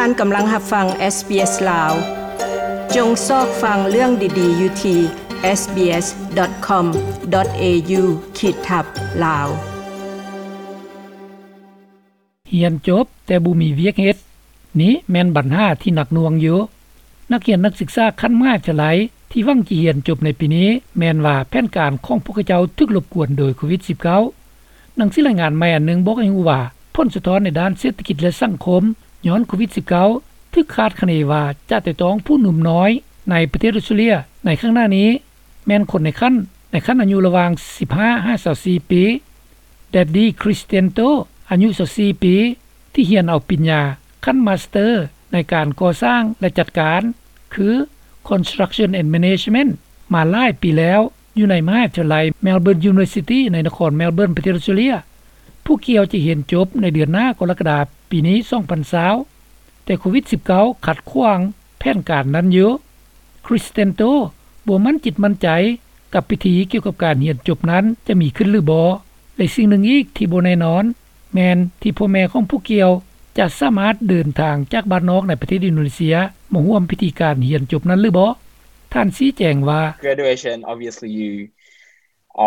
ທ່ານກຳລັງຮັບຟັງ SBS ລາວ. ຈົ່ງຊອກຟັງເລື່ອງດີໆຢູ່ທີ່ sbs.com.au/lawriesenglish. ຮຽນຈົບແຕ່ບໍ່ມີວຽກເຮັດ, ນີ້ແມ່ນບັນຫາທີ່ໜັກໜ່ວງຢູ່. ນັກຮຽນນັກສຶກສາຂັ້ນມະຫາວິທະຍາໄລທີ່ຫວັງຈະຮຽນຈົບໃນປີນີ້ ແມ່ນວ່າແຜນການຂອງພວກເຂົາເຈົ້າຖືກລົບກວນໂດຍໂຄວິດສິບເກົ້າ. ໜັງສືລາຍງານໃໝ່ອັນໜຶ່ງບອກໃຫ້ຮູ້ວ່າ ຜົນສະທ້ອນໃນດ້ານເສດຖະກິດ ແລະ ສັງຄົມຍ້ອນໂຄວິດສິບເກົ້າ ຖືກຄາດຄະເນວ່າຈະໄຕ່ຕອງຜູ້ໜຸ່ມນ້ອຍໃນປະເທດອົດສະຕຣາເລຍໃນຂ້າງໜ້ານີ້ ແມ່ນຄົນໃນຂັ້ນ ໃນຂັ້ນອາຍຸລະຫວ່າງສິບຫ້າຫາຊາວສີ່ປີ. ແດດດີ້ ຄຣິສເຕນໂຕ ອາຍຸຊາວສີ່ປີ ທີ່ຮຽນເອົາປະລິນຍາຂັ້ນມາສເຕີໃນການກໍ່ສ້າງ ແລະ ຈັດການ ຄື Construction and Management ມາຫຼາຍປີແລ້ວ ຢູ່ໃນມະຫາວິທະຍາໄລ Melbourne University ໃນນະຄອນ Melbourne ປະເທດອົດສະຕຣາເລຍ. ຜູ້ກ່ຽວຈະຮຽນຈົບໃນເດືອນໜ້າກໍລະກະດາປີນີ້ ສອງພັນຊາວ ແຕ່ໂຄວິດສິບເກົ້າຂັດຂວາງແຜນການນັ້ນຢູ່. ຄຣິສເຕນໂຕ ບໍ່ໝັ້ນຈິດໝັ້ນໃຈກັບພິທີກ່ຽວກັບການຮຽນຈົບນັ້ນຈະມີຂຶ້ນຫຼືບໍ່ ແລະ ສິ່ງໜຶ່ງອີກທີ່ບໍ່ແນ່ນອນ ແມ່ນທີ່ພໍ່ແມ່ຂອງຜູ້ກ່ຽວຈະສາມາດເດີນທາງຈາກບ້ານນອກໃນປະເທດອິນໂດເນເຊຍມາຮ່ວມພິທີການຮຽນຈົບນັ້ນຫຼືບໍ່. ທ່ານຊີ້ແຈງວ່າ Graduation, obviously you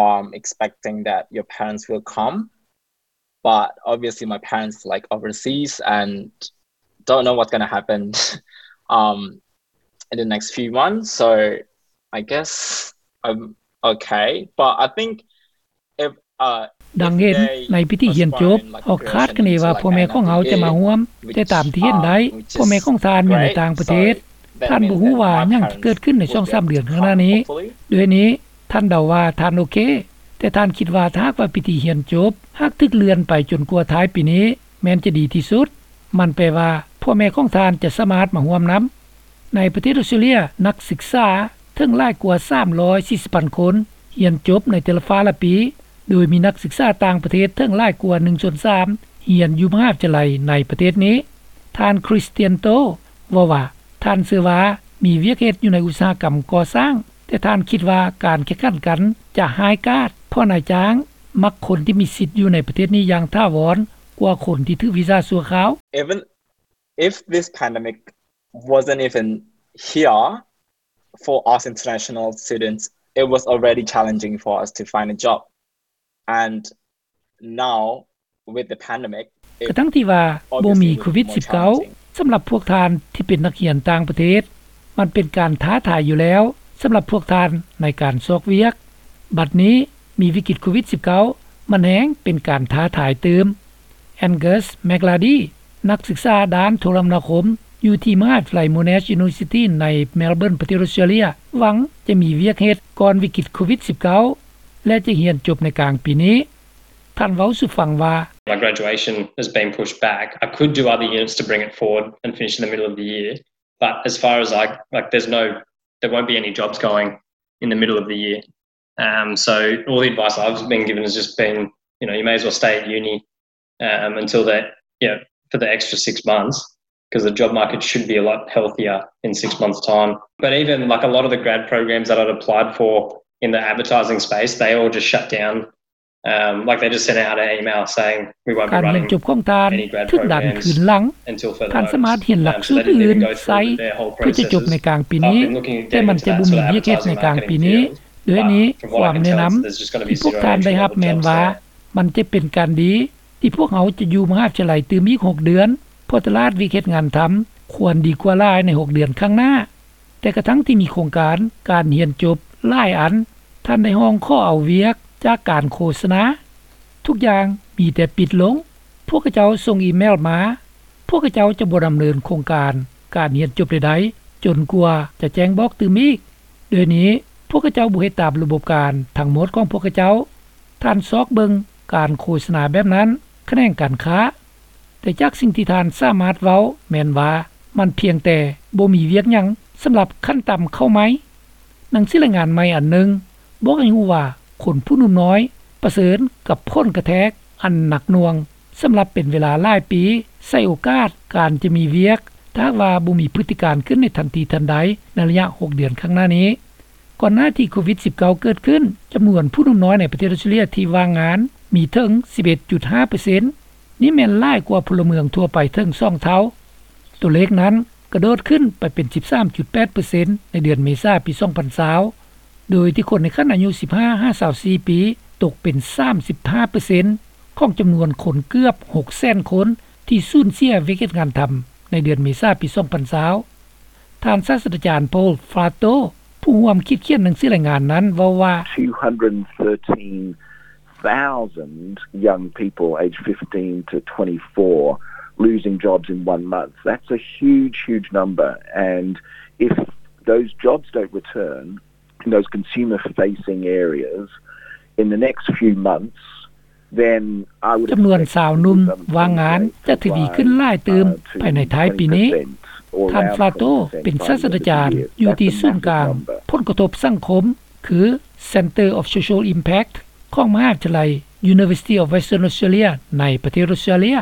um expecting that your parents will come, but obviously my parents like overseas and don't know what's going to happen um in the next few months, so I guess I'm okay, but I think if uh ດັ່ງເຫັນໃນພິທີຮຽນຈົບ ເຮົາຄາດຄະເນວ່າພໍ່ແມ່ຂອງເຮົາຈະມາຮ່ວມ, ແຕ່ຕາມທີ່ເຫັນໄດ້ ພໍ່ແມ່ຂອງທ່ານຢູ່ໃນຕ່າງປະເທດ. ທ່ານບໍ່ຮູ້ວ່າຫຍັງຈະເກີດຂຶ້ນໃນສອງສາມເດືອນຂ້າງໜ້ານີ້. ດ້ວຍນີ້ ທ່ານເດົາວ່າທ່ານໂອເຄ, ແຕ່ທ່ານຄິດວ່າຖ້າຫາກວ່າພິທີຮຽນຈົບຫາກຖືກເລື່ອນໄປຈົນກວ່າທ້າຍປີນີ້ ແມ່ນຈະດີທີ່ສຸດ. ມັນແປວ່າພໍ່ແມ່ຂອງທ່ານຈະສາມາດມາຮ່ວມນຳ. ໃນປະເທດອົດສະຕຣາເລຍ ນັກສຶກສາເຖິງຫຼາຍກວ່າສາມຮ້ອຍສີ່ສິບພັນຄົນຮຽນຈົບໃນແຕ່ລະຟ້າລະປີ, ໂດຍມີນັກສຶກສາຕ່າງປະເທດເຖິງຫຼາຍກວ່າໜຶ່ງສ່ວນສາມຮຽນຢູ່ມະຫາວິທະຍາໄລໃນປະເທດນີ້. ທ່ານ ຄຣິສຕຽນໂຕ ເວົ້າວ່າ ທ່ານເຊື່ອວ່າມີວຽກເຮັດຢູ່ໃນອຸດສາຫະກຳກໍ່ສ້າງ, ແຕ່ທ່ານຄິດວ່າການແຂ່ງຂັນກັນຈະຮ້າຍກາດ ເພາະນາຍຈ້າງມັກຄົນທີ່ມີສິດຢູ່ໃນປະເທດນີ້ຢ່າງຖາວອນກວ່າຄົນທີ່ຖືກວີຊາຊົ່ວຄາວ. Even if this pandemic wasn't even here, for us international students, it was already challenging for us to find a job. And now, with the pandemic, ກະທັງທີ່ວ່າບໍ່ມີໂຄວິດສິບເກົ້າ ສຳລັບພວກທ່ານທີ່ເປັນນັກຮຽນຕ່າງປະເທດ ມັນເປັນການທ້າທາຍຢູ່ແລ້ວສຳລັບພວກທ່ານໃນການຊອກວຽກ. ບັດນີ້ມີວິກິດໂຄວິດສິບເກົ້າ ມັນແຮ່ງເປັນການທ້າທາຍຕື່ມ. ແອງເກີສ ແມັກລາດີ ນັກສຶກສາດ້ານໂທລະມະນາຄົມ ຢູ່ທີ່ມະຫາວິທະຍາໄລ Monash University ໃນ Melbourne ປະເທດອົດສະຕຣາເລຍ ຫວັງຈະມີວຽກເຮັດກ່ອນວິກິດໂຄວິດສິບເກົ້າ ແລະ ຈະຮຽນຈົບໃນກາງປີນີ້. ທ່ານເວົ້າສູ່ຟັງວ່າ My graduation has been pushed back. I could do other units to bring it forward and finish in the middle of the year, but as far as I, like, there's no, there won't be any jobs going in the middle of the year. Um, so all the advice I've been given has just been, you know, you may as well stay at uni, um, until that, you know, for the extra six months, 'cause the job market should be a lot healthier in six months' time. But even, like, a lot of the grad programs that I'd applied for in the advertising space, they all just shut down. Um, like, they just sent out an email saying, "We won't be running any grad programs until further notice." ການຮຽນຈົບຂອງທ່ານຖືກດັນຄືນຫຼັງ. ທ່ານສາມາດຮຽນຫຼັກສູດອື່ນໃສ່ເພື່ອຈະຈົບໃນກາງປີນີ້, ແຕ່ມັນຈະບໍ່ມີວຽກເຮັດໃນກາງປີນີ້. ດ້ວຍນີ້, ຄວາມແນະນຳທີ່ພວກທ່ານໄດ້ຮັບແມ່ນວ່າ ມັນຈະເປັນການດີທີ່ພວກເຮົາຈະຢູ່ມະຫາວິທະຍາໄລຕື່ມອີກຫົກເດືອນ, ເພາະຕະຫຼາດວຽກເຮັດງານທຳຄວນດີກວ່າຫຼາຍໃນຫົກເດືອນຂ້າງໜ້າ. ແຕ່ກະທັງທີ່ມີໂຄງການການຮຽນຈົບຫຼາຍອັນ, ທ່ານໄດ້ຮ້ອງຂໍເອົາວຽກຈາກການໂຄສະນາ. ທຸກຢ່າງມີແຕ່ປິດລົງ. ພວກເຂົາເຈົ້າສົ່ງອີເມວມາ, ພວກເຂົາເຈົ້າຈະບໍ່ດຳເນີນໂຄງການການຮຽນຈົບໃດໆ ຈົນກວ່າຈະແຈ້ງບອກຕື່ມອີກ. ດຽວນີ້ພວກເຂົາເຈົ້າບໍ່ເຮັດຕາມລະບົບການທັງໝົດຂອງພວກເຂົາເຈົ້າ. ທ່ານຊອກເບິ່ງການໂຄສະນາແບບນັ້ນ, ຂະແໜງການຄ້າ. ແຕ່ຈາກສິ່ງທີ່ທ່ານສາມາດເວົ້າແມ່ນວ່າ ມັນພຽງແຕ່ບໍ່ມີວຽກຫຍັງສຳລັບຂັ້ນຕ່ຳເຂົ້າໃໝ່. ໜັງສືລາຍງານໃໝ່ອັນໜຶ່ງບອກໃຫ້ຮູ້ວ່າ ຄົນຜູ້ໜຸ່ມນ້ອຍປະເຊີນກັບຜົນກະແທກອັນໜັກໜ່ວງສຳລັບເປັນເວລາຫຼາຍປີ, ໃສ່ໂອກາດການຈະມີວຽກ ຖ້າຫາກວ່າບໍ່ມີພຶດຕິການຂຶ້ນໃນທັນທີທັນໃດໃນໄລຍະຫົກເດືອນຂ້າງໜ້ານີ້. ກ່ອນໜ້າທີ່ໂຄວິດສິບເກົ້າເກີດຂຶ້ນ, ຈຳນວນຜູ້ໜຸ່ມນ້ອຍໃນປະເທດອົດສະຕຣາເລຍທີ່ວ່າງງານມີເຖິງສິບເອັດຈຸດຫ້າເປີເຊັນ. ນີ້ແມ່ນຫຼາຍກວ່າພົນລະເມືອງທົ່ວໄປເຖິງສອງເທົ່າ. ຕົວເລກນັ້ນກະໂດດຂຶ້ນໄປເປັນ ສິບສາມຈຸດແປດເປີເຊັນ ໃນເດືອນເມສາ ປີສອງພັນຊາວ ໂດຍທີ່ຄົນໃນຂັ້ນອາຍຸ ສິບຫ້າ ຫາ ຊາວສີ່ປີ ຕົກເປັນ ສາມສິບຫ້າເປີເຊັນ ຂອງຈຳນວນຄົນເກືອບ ຫົກແສນຄົນ ທີ່ສູນເສຍວຽກເຮັດງານທຳ ໃນເດືອນເມສາ ປີສອງພັນຊາວ. ທ່ານສາດສະດາຈານ Paul Fratto ຜູ້ຮ່ວມຄິດຂຽນໜັງສືລາຍງານນັ້ນເວົ້າວ່າ two hundred thirteen thousand young people aged fifteen to twenty-four losing jobs in one month. That's a huge, huge number. And if those jobs don't return in those consumer facing areas in the next few months, then I would ຈຳນວນຊາວໜຸ່ມວ່າງງານຈະທະວີຂຶ້ນຫຼາຍຕື່ມພາຍໃນທ້າຍປີນີ້. ທ່ານ Fratto ເປັນສາດສະດາຈານຢູ່ທີ່ສູນກາງຜົນກະທົບສັງຄົມ ຄື Centre of Social Impact ຂອງມະຫາວິທະຍາໄລ University of Western Australia ໃນປະເທດອອສເຕຣເລັຍ.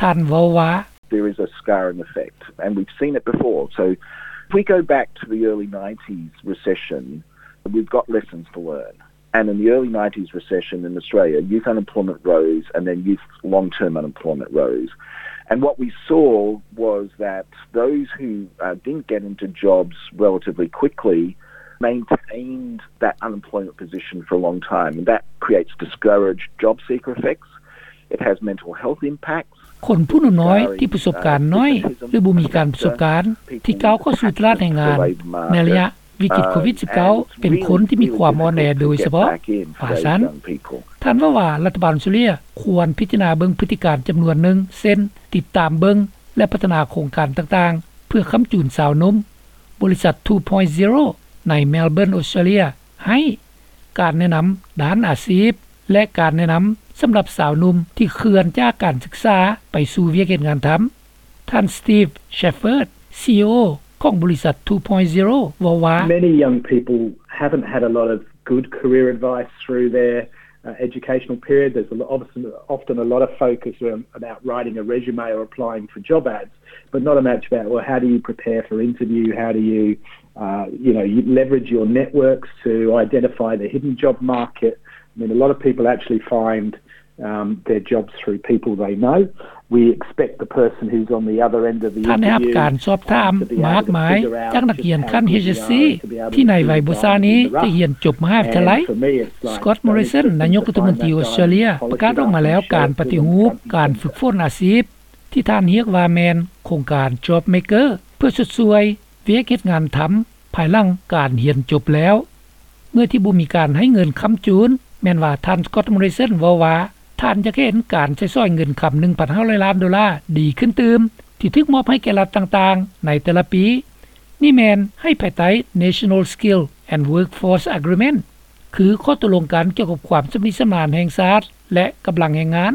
ທ່ານເວົ້າວ່າ There is a scarring effect, and we've seen it before. So if we go back to the early nineties recession, we've got lessons to learn. And in the early nineties recession in Australia, youth unemployment rose and then youth long-term unemployment rose. And what we saw was that those who, uh, didn't get into jobs relatively quickly maintained that unemployment position for a long time. And that creates discouraged job seeker effects. It has mental health impacts. ຄົນຜູ້ໜູນ້ອຍທີ່ປະສົບການໜ້ອຍ ຫຼື ບໍ່ມີການປະສົບການ ທີ່ກ້າວເຂົ້າສູ່ຕະຫຼາດແຮງງານໃນໄລຍະວິກິດໂຄວິດສິບເກົ້າ ເປັນຄົນທີ່ມີຄວາມອ່ອນແອໂດຍສະເພາະ ວ່າຊັ້ນ. ທ່ານເວົ້າວ່າລັດຖະບານອອສເຕຣເລັຍຄວນພິຈາລະນາເບິ່ງພຶດຕິການຈຳນວນໜຶ່ງ ເຊັ່ນ ຕິດຕາມເບິ່ງ ແລະ ພັດທະນາໂຄງການຕ່າງໆ ເພື່ອຄ້ຳຈູນຊາວໜຸ່ມ. ບໍລິສັດ Two Point Zero ໃນ Melbourne ອອສເຕຣເລັຍ ໃຫ້ການແນະນຳດ້ານອາຊີບ ແລະ ການແນະນຳສຳລັບຊາວໜຸ່ມທີ່ເຄື່ອນຈາກການສຶກສາໄປສູ່ວຽກເຮັດງານທຳ. ທ່ານ Steve Shepherd ຊີອີໂອ ຂອງບໍລິສັດ Two Point Zero ເວົ້າວ່າ Many young people haven't had a lot of good career advice through their, uh, educational period. There's a lo-, often, often a lot of focus around, about writing a resume or applying for job ads, but not a much about, well, how do you prepare for interview? How do you, uh, you know, you leverage your networks to identify the hidden job market? I mean, a lot of people actually find, um, their jobs through people they know. We expect the person who's on the other end of the interview, um, to be able to figure out just how good you are and to be able to do the role. ທ່ານໄດ້ຮັບການສອບຖາມມາກມາຈາກນັກຮຽນຂັ້ນ ເອັດເອັສຊີ ທີ່ນາຍໄວບໍ່ຊ້ານີ້ຈະຮຽນຈົບມະຫາວິທະຍາໄລ. Scott Morrison ນາຍົກລັດຖະມົນຕີອອສເຕຣເລັຍ ປະກາດອອກມາແລ້ວການປະຕິຮູບການຝຶກຝົນອາຊີບ ທີ່ທ່ານຮຽກວ່າແມ່ນໂຄງການ Job Maker ເພື່ອຊົດຊ່ວຍວຽກເຮັດງານທຳພາຍຫຼັງການຮຽນຈົບແລ້ວ. ເມື່ອທີ່ບໍ່ມີການໃຫ້ເງິນຄ້ຳຈູນ ແມ່ນວ່າທ່ານ Scott Morrison ເວົ້າວ່າ ທ່ານຢາກເຫັນການໃຊ້ສອຍເງິນຄຳ ໜຶ່ງພັນຫ້າຮ້ອຍລ້ານໂດລາດີຂຶ້ນຕື່ມ ທີ່ຖືກມອບໃຫ້ແກ່ລັດຕ່າງໆໃນແຕ່ລະປີ. ນີ້ແມ່ນໃຫ້ພາຍໃຕ້ National Skill and Workforce Agreement ຄືຂໍ້ຕົກລົງກັນກ່ຽວກັບຄວາມຊຳນິຊຳນານແຫ່ງຊາດ ແລະ ກຳລັງແຮງງານ.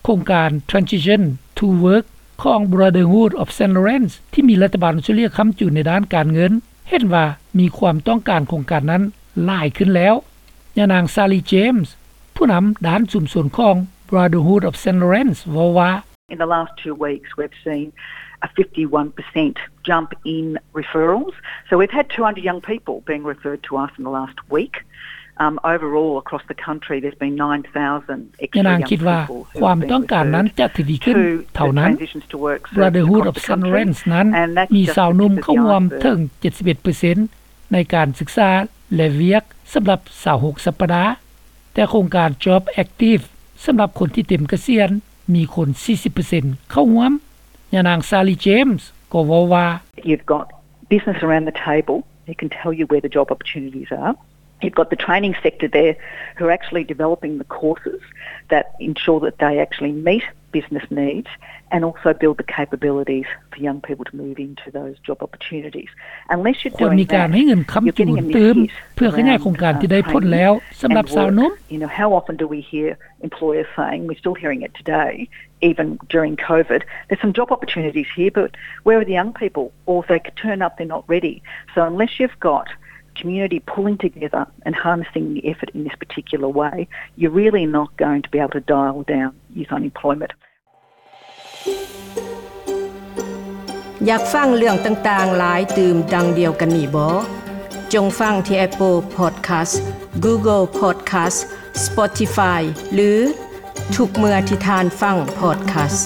ໂຄງການ Transition to Work ຂອງ Brotherhood of Saint Lawrence ທີ່ມີລັດຖະບານອອສເຕຣເລັຍຄ້ຳຈູນໃນດ້ານການເງິນ ເຫັນວ່າມີຄວາມຕ້ອງການໂຄງການນັ້ນຫຼາຍຂຶ້ນແລ້ວ. ຍານາງ Sally James ຜູ້ນຳດ້ານຊຸມຊົນຂອງ Brotherhood of Saint Lawrence ເວົ້າວ່າ In the last two weeks, we've seen a fifty-one percent jump in referrals. So we've had two hundred young people being referred to us in the last week. Um, overall, across the country, there's been nine thousand extra young people who have been referred to the Transitions to Work service across the country. ຍານາງຄິດວ່າຄວາມຕ້ອງການນັ້ນຈະທະວີຂຶ້ນເທົ່ານັ້ນ. Brotherhood of Saint Lawrence ນັ້ນມີຊາວໜຸ່ມເຂົ້າຮ່ວມເຖິງ ເຈັດສິບເອັດເປີເຊັນ ໃນການສຶກສາ ແລະ ວຽກສຳລັບ ຊາວຫົກສັບປະດາ. ແຕ່ໂຄງການ Job Active ສຳລັບຄົນທີ່ເຕັມກະສຽນ ມີຄົນ ສີ່ສິບເປີເຊັນ ເຂົ້າຮ່ວມ. ຍານາງ Sally James ກໍເວົ້າວ່າ You've got business around the table who can tell you where the job opportunities are. You've got the training sector there who are actually developing the courses that ensure that they actually meet business needs and also build the capabilities for young people to move into those job opportunities. Unless you're doing that, you're getting a miss hit. ຄວນມີການໃຫ້ເງິນຄ້ຳຈູນຕື່ມ ເພື່ອຂະຫຍາຍໂຄງການທີ່ໄດ້ຜົນແລ້ວສຳລັບຊາວໜຸ່ມ. You know, how often do we hear employers saying, we're still hearing it today, even during COVID, there's some job opportunities here, but where are the young people? Or if they turn up, they're not ready. So unless you've got community pulling together and harnessing the effort in this particular way, you're really not going to be able to dial down youth unemployment. ຢາກຟັງເລື່ອງຕ່າງໆຫຼາຍຕື່ມດັ່ງດຽວກັນນີ້ບໍ່? ຈົ່ງຟັງທີ່ Apple Podcast, Google Podcast, Spotify ຫຼື ທຸກເມື່ອທີ່ທ່ານຟັງ podcast.